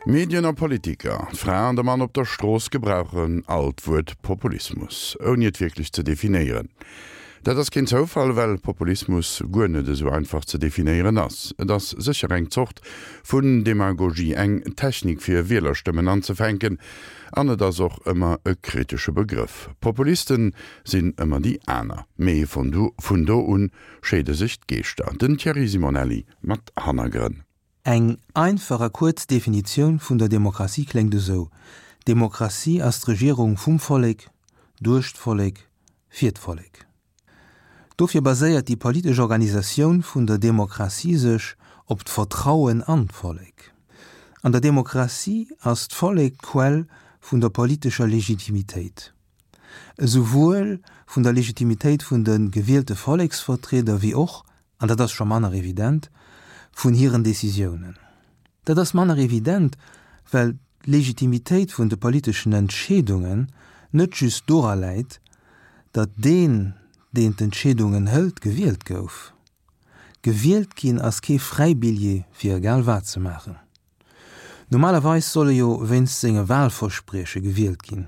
Medien a Politiker, d'Fra an de Mann op der Strooss gebrauchen all d'Wuert Populismus, ouni et wierklech ze definéieren. Dat ass keen Zoufall, well Populismus guer net esou einfach ze definéieren ass. Et ass sécher eng Zort vun Demagogie, eng Technik fir Wielerstëmmen anzefänken, an et ass och ëmmer e kritesche Begrëff. Populisten sinn ëmmer déi aner, mee vun do un scheede sech d'Geeschter. Den Thierry Simonelli mat Hannergrënn. Eng einfach a kuerz Definitioun vun der Demokratie kléngt esou, Demokratie ass d'Regierung vum Vollek, duerch d'Vollek, fir d'Vollek. Dofir baséiert déi politesch Organisatioun vun der Demokratie sech op d'Vertrauen an d'Vollek. An der Demokratie ass d'Vollek d'Quell vun der politescher Legitimitéit. Esouwuel vun der Legitimitéit vun de gewielte Volleksvertrieder wéi och, an dat ass scho manner evident, vun hiren Décisiounen. Dat ass manner evident, well d'Legitimitéit vun de politeschen Entscheedungen net just dora läit, datt deen, deen d'Entscheedungen hëlt, gewielt gouf. Gewielt ginn ass kee Fräibilljee fir egal wat ze maachen. Normalerweis soll e jo wéinst senge Wahlversprieche gewielt ginn,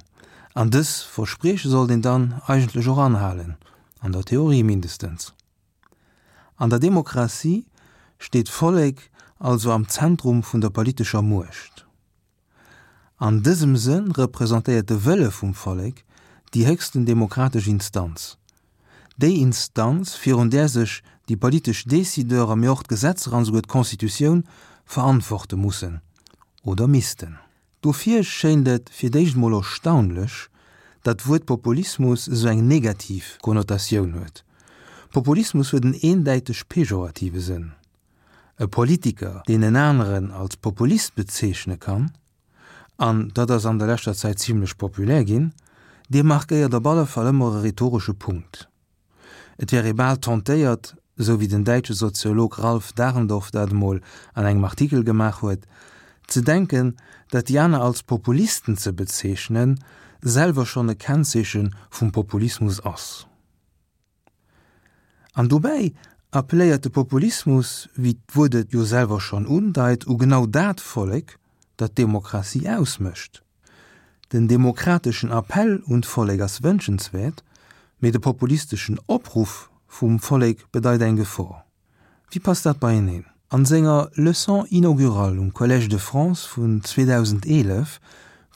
an dës Versprieche sollt een dann eigentlech och anhalen, an der Theorie mindestens. An der Demokratie steet d'Vollek also am Zentrum vun der politescher Muecht. An dësem Sënn representéiert de Wëlle vum Vollek déi héchsten demokratesch Instanz, déi Instanz, virun där sech déi politesch Décideuren, mee och d'Gesetzer an esouguer d'Constitutioun verantworte mussen oder missten. Dofir schéint et fir d'éischt mol erstaunlech, datt d'Wuert Populismus esou eng negativ Konnotatioun huet. Populismus huet en eendäiteg pejorative Sënn. E Politiker, deen en aneren als Populist bezeechne kann, an dat ass an der leschter Zäit zimlech populär ginn, dee markéiert op alle Fall ëmmer e rhetoresche Punkt. Et wär ee bal tentéiert, esou wéi den däitsche Soziolog Ralf Dahrendorf dat emol an engem Artikel gemaach huet, ze denken, datt déi aner als Populisten ze bezeechnen, selwer schonn e Kennzeeche vum Populismus ass. An dobäi appelléiert de Populismus, wéi d'Wuert et jo selwer schonn undeit, u genau dat Vollek, dat d'Demokratie ausmécht. Den demokrateschen Appell un d'Vollek ass wënschenswäert, mee de populisteschen Opruff vum Vollek bedeit eng Gefor. Wéi passt dat beieneen? An senger Leçon inaugurale um Collège de France vun 2011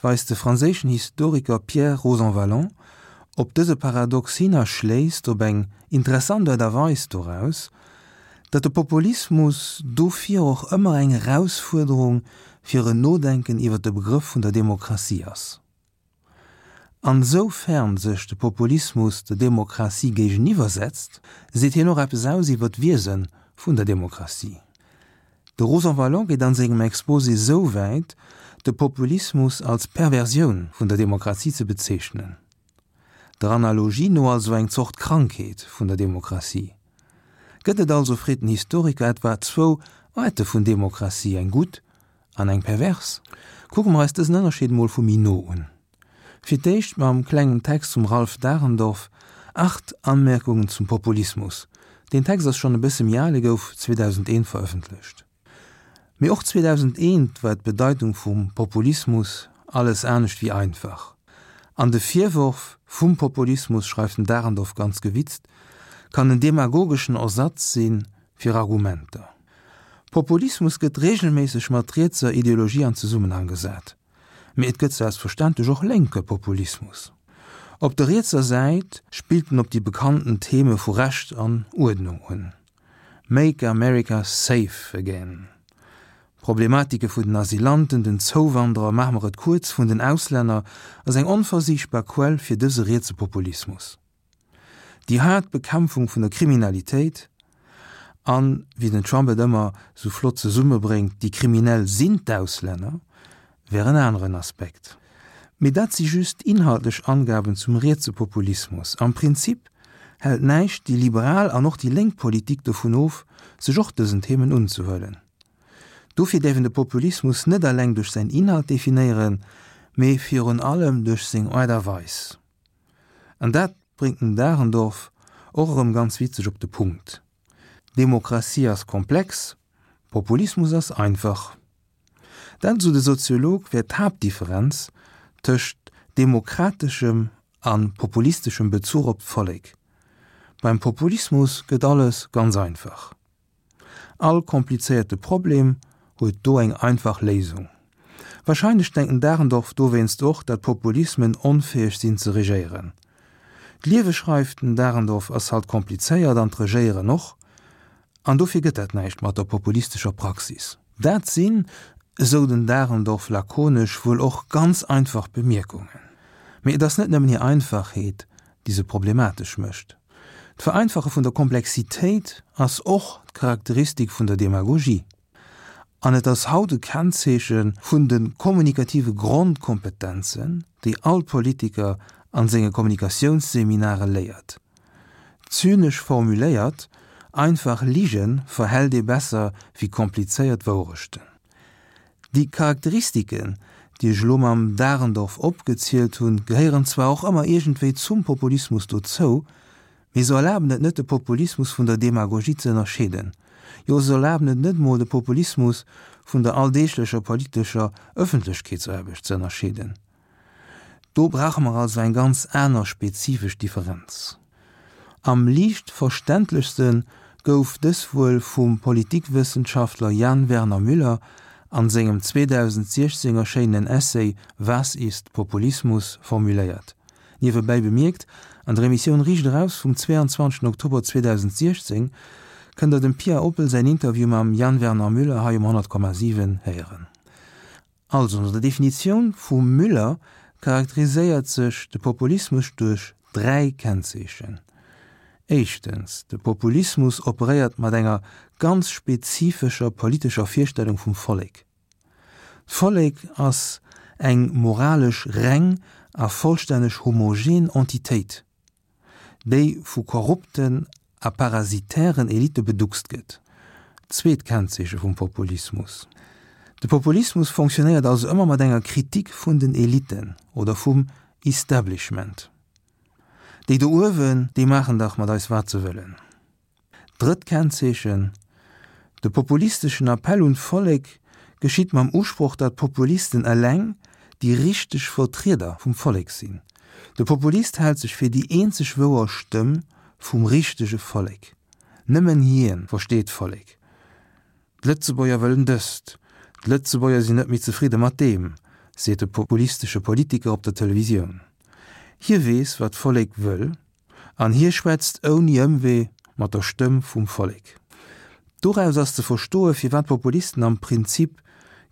weist de franséischen Historiker Pierre Rosanvallon op dëse Paradox hin a schléisst op eng interessant Aart a Weis doraus, datt de Populismus dofir och ëmmer eng Erausfuerderung fir en Nodenken iwwer de Begrëff vun der Demokratie ass. An soufern sech de Populismus der Demokratie géigeniwwer setzt, seet hien och eppes aus iwwer d'Wiese vun der Demokratie. De Rosanvallon geet an sengem Exposé sou wäit, de Populismus als Perversioun vun der Demokratie ze bezeechnen. Der Analogie no also eng Zort Krankheet vun der Demokratie. Gëtt et also, freet den Historiker, etwa zwou Aarte vun Demokratie, eng gutt An eng pervers? Kucke mer eis dësen Ënnerscheed mol vu méi no un. Fir d'éischt mam klengen Text vum Ralph Dahrendorf, Acht Anmerkungen zum Populismus. Deen Text ass schonn e bësse méi al, e gouf 2001 verëffentlecht. Mee och 2001 war d'Bedeitung vum Populismus alles anescht wéi einfach. An de Virworf vum Populismus, schreift den Dahrendorf ganz gewitzt, kann en demagogeschen Ersatz si fir Argumenter. Populismus gëtt reegelméisseg mat rietser Ideologie an Zesummenhang gesat. Mee et gëtt selbstverständlech och lénke Populismus. Op der rietser Säit spillt en op déi bekannten Theme vu Recht an Uerdnung un, Make America safe again, Problematike vun den Asylanten, den Zouwanderer, maache mer et kuerz, vun den Auslänner, ass eng onversichtbar Quell fir dëse rietse Populismus. Déi haart Bekämpfung vun der Kriminalitéit an, wéi den Trump et ëmmer sou flott zesummebréngt, déi Kriminell sinn d'Auslänner, wär en aneren Aspekt. Mee dat si just inhaltlech Angaben zum rietse Populismus. Am Prinzip hält näischt déi liberal an och déi lénk Politik dovun of, sech och dësen Themen unzehuelen. Dofir däerf een de Populismus net eleng duerch säin Inhalt definéieren, mee virun allem duerch seng Aart a Weis. An dat bréngt den Dahrendorf och erëm ganz witzeg op de Punkt, Demokratie ass komplex, Populismus ass einfach. Dat, esou de Soziolog, wär d'Haaptdifferenz tëscht demokrateschem a populisteschem Bezuch op d'Vollek. Beim Populismus gëtt alles ganz einfach. All komplizéierte Problem huet do eng einfach Léisung. Wahrscheinlech denkt den Dahrendorf dowéinst och, dat Populismen onfäeg sinn ze regéieren. D'Liewe, schreift den Dahrendorf, ass halt komplizéiert an d'Regéieren och, an dofir gëtt dat näischt mat der populistescher Praxis. Dat sinn, esou den Dahrendorf lakonesch, wuel och ganz einfach Bemierkungen. Mee et ass net nëmmen hir Einfachheet, déi se problematesch mécht. D'Vereinfache vun der Komplexitéit ass och d'Charakteristik vun der Demagogie. An et ass haut e Kennzeeche vun de kommunikative Grondkompetenzen, déi all Politiker an senge Kommunikatiounsseminare léiert. Zynesch formuléiert, Einfach Lige verhält ee besser wéi komplizéiert Wourechten. Déi Charakteristiken, déi ech elo mam Dahrendorf opgezielt hunn, gehéieren zwar och ëmmer iergendwéi zum Populismus dozou, mee se erlaben et net de Populismus vun der Demagogie ze ënnerscheeden. Jo, se erlaben et net emol de Populismus vun der alldeeglecher politescher Ëffentlechkeetsaarbecht ze ënnerscheeden. Do brauche mer also eng ganz aner spezifesch Differenz. Am liicht verständlechste gouf dës wuel vum Politikwëssenschaftler Jan Werner Müller an sengem 2016 erschéinenen Essay Was ist Populismus? formuléiert. Niewebäi bemierkt, an der Emissioun Riicht Eraus vum 22 Oktober 2016 kënnt der dem Pia Oppel säin Interview mam Jan Werner Müller hei um 100,7 héieren. Also no der Definitioun vum Müller charakteriséiert sech de Populismus duerch 3 Kennzeechen. Éischtens, de Populismus operéiert mat enger ganz spezifescher politescher Virstellung vum Vollek. D'Vollek ass eng moralesch reng a vollstänneg homogen Entitéit. déi vu korrupten a parasitären Elitte beduckst gëtt. Zweet Kennzeeche vum Populismus, De Populismus fonctionnéiert also ëmmer mat enger Kritik vun den Elitten oder vum Establishment. Déi do uewen, déi maachen dach mat eis wat se wëllen. Drëtt Kennzeechen, De populisteschen Appell un d'Vollek geschitt mam Usproch, datt d'Populisten eleng déi richteg Vertrieder vum Vollek sinn. De Populist hält sech fir déi eenzeg wouer Stëmm vum richtege Vollek. Nëmmen hien versteet d'Vollek. D'Lëtzebuerger wëllen dëst, d'Lëtzebuerger sinn net méi zefridde mat deem, seet de populistesche Politiker op der Televisioun. Hie weess, wat d'Vollek wëll An hie schwätzt ouni Ëmwee mat der Stëmm vum Vollek. Doraus ass ze verstoe firwat Populisten am Prinzip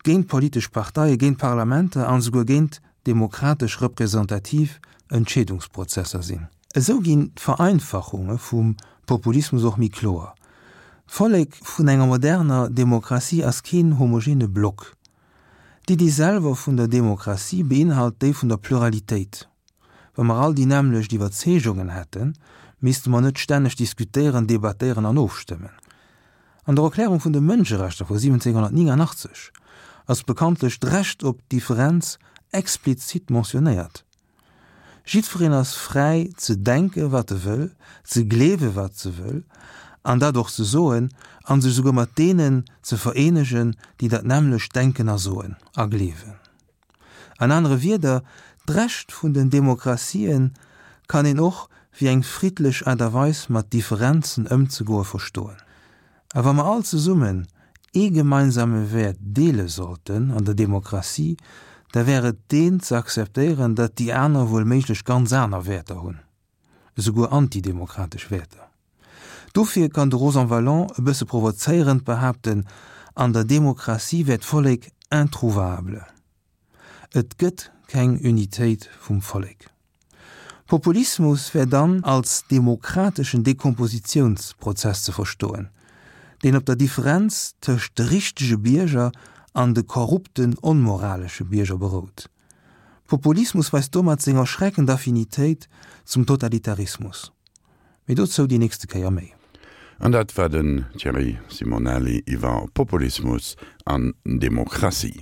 géint politesch Parteien, géint Parlamenter an esouguer géint demokratesch representativ Entscheedungsprozesser sinn. Esou ginn d'Vereinfachunge vum Populismus och méi kloer. D'Vollek vun enger moderner Demokratie ass keen homogene Block. D'Iddi selwer vun der Demokratie beinhalt déi vun der Pluralitéit. Wa mer all déi nämmlecht Iwwerzeegungen hätten, misste mer net stänneg diskutéieren, debattéieren an ofstëmmen. An der Erklärung vun de Mënscherechter vu 1789 ass bekanntlech d'Recht op Differenz explizit mentionnéiert. Jiddwereen ass fräi ze denke wat e wëll, ze gleewe wat se wëll an dat och ze soen an sech esouguer mat deenen ze vereenegen, déi dat nämmlecht denken a soen a gleewen. An anere Wierder, d'Recht vun den Demokratien kann een och wéi eng friddlech Aart a Weis mat Differenzen ëmzegoe verstoen. A wa mer all zesummen ee gemeinsame Wäert deele sollten an der Demokratie, da wär et deen ze akzeptéieren, datt déi aner wuel méiglech ganz aner Wäerter hunn, esouguer antidemokratesch Wäerter. Dofir kann de Rosanvallon e bësse provozéierend behaapten, an der Demokratie wär d'Vollek introuvable. Et gëtt keng Unitéit vum Vollek. Populismus wär dann als demokrateschen Dekompositiounsprozess ze verstoen, deen op der Differenz tëscht de richtege Bierger an de korrupten, onmoralesche Bierger berout. Populismus weist domat seng erschreckend Affinitéit zum Totalitarismus. Mee dozou déi nächste Kéier méi. An dat war den Thierry Simonelli iwwer Populismus an Demokratie.